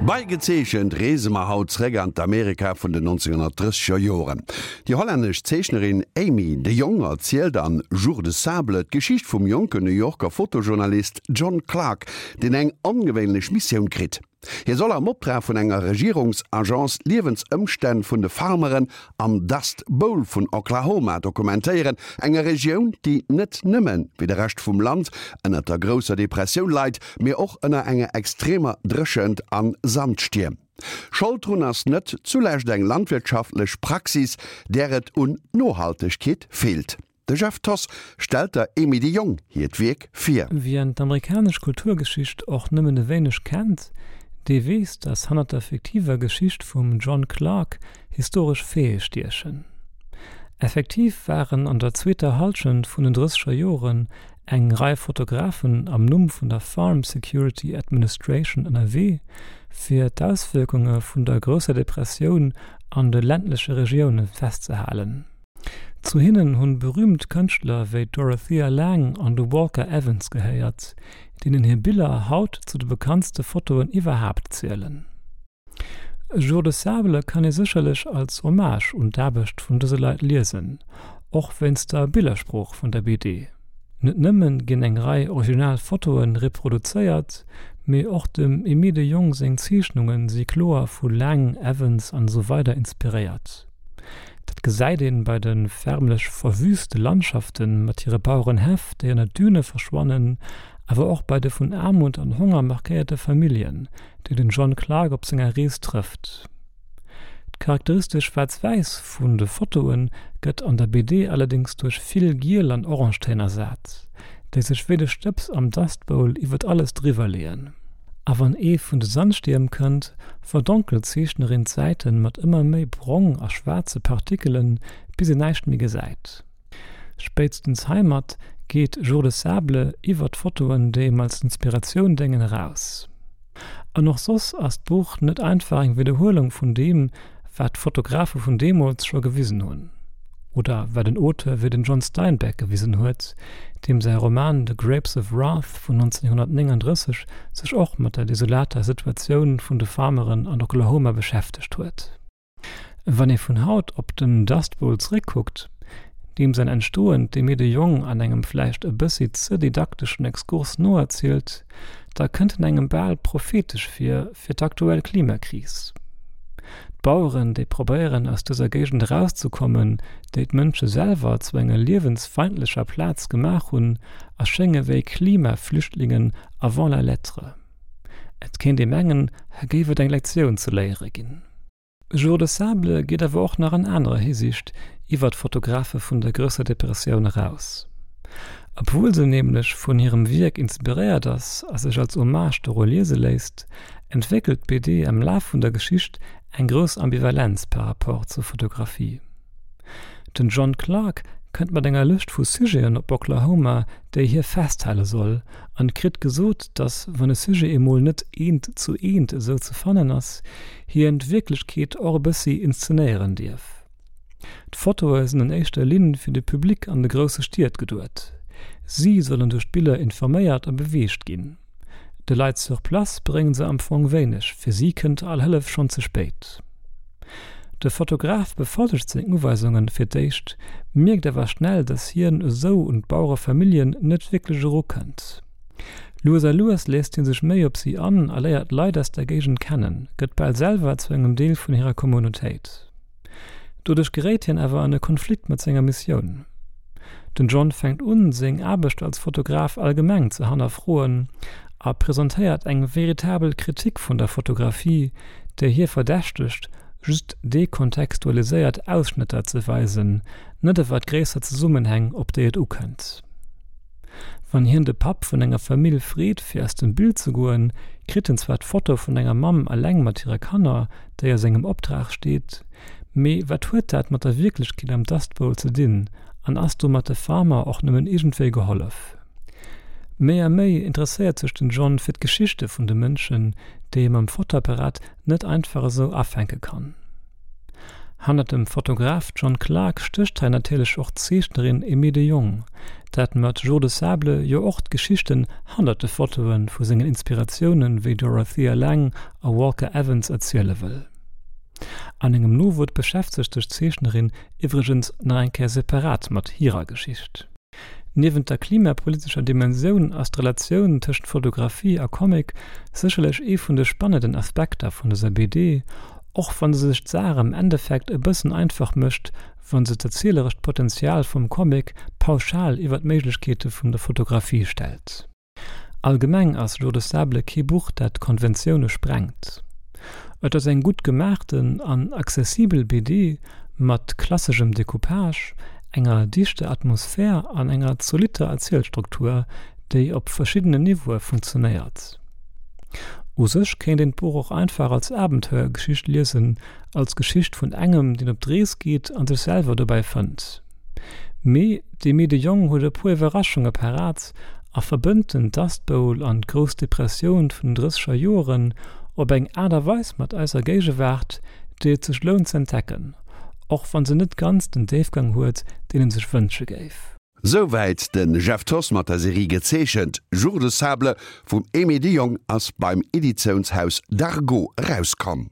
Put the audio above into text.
Bei Gezeechent reese mer haut zréck an d'Amerika vun den 1930er Joren. Déi hollännesch Zeechnerin Amy de Jong erzielt an Jours de sable d'Geschicht vum jonken New Yorker Fotojournalist John Clark, deen eng ongewéinlech Missioun kritt. Hie soll am Optrag vun enger Regierungsagence d'Liewensëmstänn vun de Farmeren am Dust Bowl vun Oklahoma dokumentéieren, enger Regioun, déi net nëmme wéi de Rescht vum Land ënner der Grousser Depressioun leit, mee och ënner enger extremer Dréchent an Sandstierm. Schold drun ass net zulescht eng landwirtschaftlech Praxis, där et un Nohaltegkeet feelt. De Jeff Thoss stellt der Emy de Jong hiert Wierk vir. Wien d'amerikanesch Kulturgeschicht och nëmmen e wéineg kennt, dee weess, datt hannert der fiktiver Geschicht vum John Clark historesch Faite stiechen. Effektiv waren an der zweeter Hallschent vun den drësseger Joren eng Rei Fotografen am Numm vun der Farm Security Administration ënnerwee, fir d'Auswierkunge vun der Grousser Depressioun an de ländleche Regioune festzehalen. Zu hinnen hunn berüümt Kënschtler wéi d'Dorothea Lange an de Walker Evans gehéiert, deenen hir Biller haut zu de bekanntste Fotoen iwwerhaapt zielen. Jours de sable kann ee sécherlech als Hommage un d'Aarbecht vun dëse Leit liesen, och wéinst der Billersprooch vun der BD. Net nëmmen ginn eng Rei original Fotoe reproduzéiert, mee och dem Aimé de Jongh seng Zeechnunge si kloer vu Lange, Evans an esou weider inspiréiert. Dat gesäit een bei de förmlech verwüste Landschafte mat hire Bauerenhäff, déi ënner Düne verschwannen, awer och bei de vun Aarmut an Honger markéierte Familljen, déi den John Clarke op senger Rees trëfft. D'charakteristesch Schwaarz-Wäiss vun de Fotoe gëtt an der BD allerdéngs duerch vill Giel an Orangetéin ersat, déi sech wéi de Stëbs am Dust Bowl iwwert alles driwwer leeën. A wann ee vun de Sandstierm kënnt, verdonkelt d'Zeechnerin d'Säiten mat ëmmer méi brong a schwaarze Partikelen, bis een näischt méi gesäit. Spéitstens heimat geet Jours de sable iwwer d'Fotoen, déi em als Inspiratioun déngen, eraus. An och soss ass d'Buch net einfach eng Widderhuelung vun deem, wat d'Fotografe vun deemools scho gewisen hunn. Oder wat en Auteur wéi den John Steinbeck gewisen huet, deem säi Roman The Grapes of Wrath vun 1939 sech och mat der desolater Situatioun vun de Farmeren an Oklahoma beschäftegt huet. Wann ee vun haut op den Dust Bowl zeréckkuckt, deem säin Entstoen d'Aimée de Jongh an engem vläicht e bëssi ze didakteschen Exkurs noerzielt, da kënnt en engem bal prophetesch vir fir d'aktuell Klimakris. D'Baueren, déi probéieren aus dëser Géigend erauszekommen, déi d'Mënsche selwer zu enger liewensfeindlecher Plaz gemaach hunn, erschénge wéi Klimaflüchtlingen avant la lettre. Et kéint ee mengen, hei géif et eng Lektioun ze léiere ginn. Jours de sable geet awer och nach an anerer Hisiicht iwwer d'Fotografe vun der Grousser Depressioun eraus. Obwuel se nämlech vun hirem Wierk inspiréiert ass a sech als Hommage doru liese léisst, entwéckelt d'BD am Laf vun der Geschicht eng grouss Ambivalenz par rapport zur Fotografie. Den John Clarke kënnt mat enger Lëscht vu Sujeten op Oklahoma, déi hie festhale soll, an kritt gesot, dass, wann e Sujet emol net eent zu eent esou ze fannen ass, hien d'Wierklechkeet och e bëssi inszenéieren dierf. D'Fotoe sinn an éischter Linn fir de Public an de grousse Stied geduet. Si sollen duerch d'Biller informéiert a beweegt ginn. De Leit sur place bréngen se am Fong wéineg, fir si kënnt all Hëllef schonn ze spéit. De Fotograf befollegt seng Uweisungen fir d'éischt, mierkt awer schnell, dass hien esou un d'Bauerefamilljen net wierklech erukënnt. Lues a lues léisst hie sech méi op si an a léiert d'Leit aus der Géigend kennen, gëtt bal selwer zu engem Deel vun hirer Communautéit. Doduerch geréit hien awer an e Konflikt mat senger Missioun. Den John fänkt un, seng Aarbecht als Fotograf allgemeng ze hannerfroen a presentéiert eng veritabel Kritik vun der Fotografie, déi hie verdächtegt, just dekontextualiséiert Ausschnëtter ze weisen, net awer d'gréisser Zesummenhäng, op déi et ukënnt. Wann hien de Papp vun enger Famill freet fir aus dem Bild ze goen, kritt en zwar d'Foto vun enger Mamm eleng mat hire Kanner, déi a sengem Optrag steet, mee wat huet dat mat der Wierklechkeet am Dust Bowl ze dinn an ass domat de Farmer och nëmmen iergendwéi gehollef? Méi a méi interesséiert sech den John fir d'Geschichte vun de Mënschen, déi ee mam Fotoapparat net einfach esou afänke kann. Hannert dem Fotograf John Clarke stécht hei natierlech och d'Zeechnerin Aimée de Jongh, dat mat Jours de sable jo och d'Geschichten hannert de Fotoe vu sengen Inspiratioune wéi Dorothea Lange a Walker Evans erziele wëll. An engem Nowuert beschäftegt sech d'Zeechnerin iwwregens nach eng Kéier separat mat hirer Geschicht. Niewent der klimapolitescher Dimensioun ass d'Relatioun tëschent Fotografie a Comic sécherlech ee vun de spannenden Aspekter vun dëser BD, och wann se sech d'Saach am Endeffekt e bëssen einfach mécht, wann se d'erzielerescht Potenzial vum Comic pauschal iwwer d'Méiglechkeete vun der Fotografie stellt. Allgemeng ass Jours de sable kee Buch, dat Konventioune sprengt. Et ass eng gutt gemaachten an accessibel BD mat klasseschem Decoupage, enger dichter Atmosphär an enger zolitter Erzielstruktur, déi op verschiddenen Niveaue funktionéiert. U sech kéint een d'Buch och einfach als Abenteuergeschicht liesen, als Geschicht vun engem, deen op d'Rees geet a sech selwer dobäi fënnt. Mee d'Aimée de Jongh huet e puer Iwwerraschunge parat a verbënnt den Dust Bowl an d'Grouss Depressioun vun den drësseger Joren op eng Aart a Weis mat eiser Géigewaart, déi et sech lount z'entdecken, och wann se net ganz den Déifgang huet, deen en sech wënsche géif. Souwäit de Jeff Thoss mat der Serie Gezeechent. Jours de sable vum Aimée de Jongh ass beim Editiounshaus Dargaud erauskomm.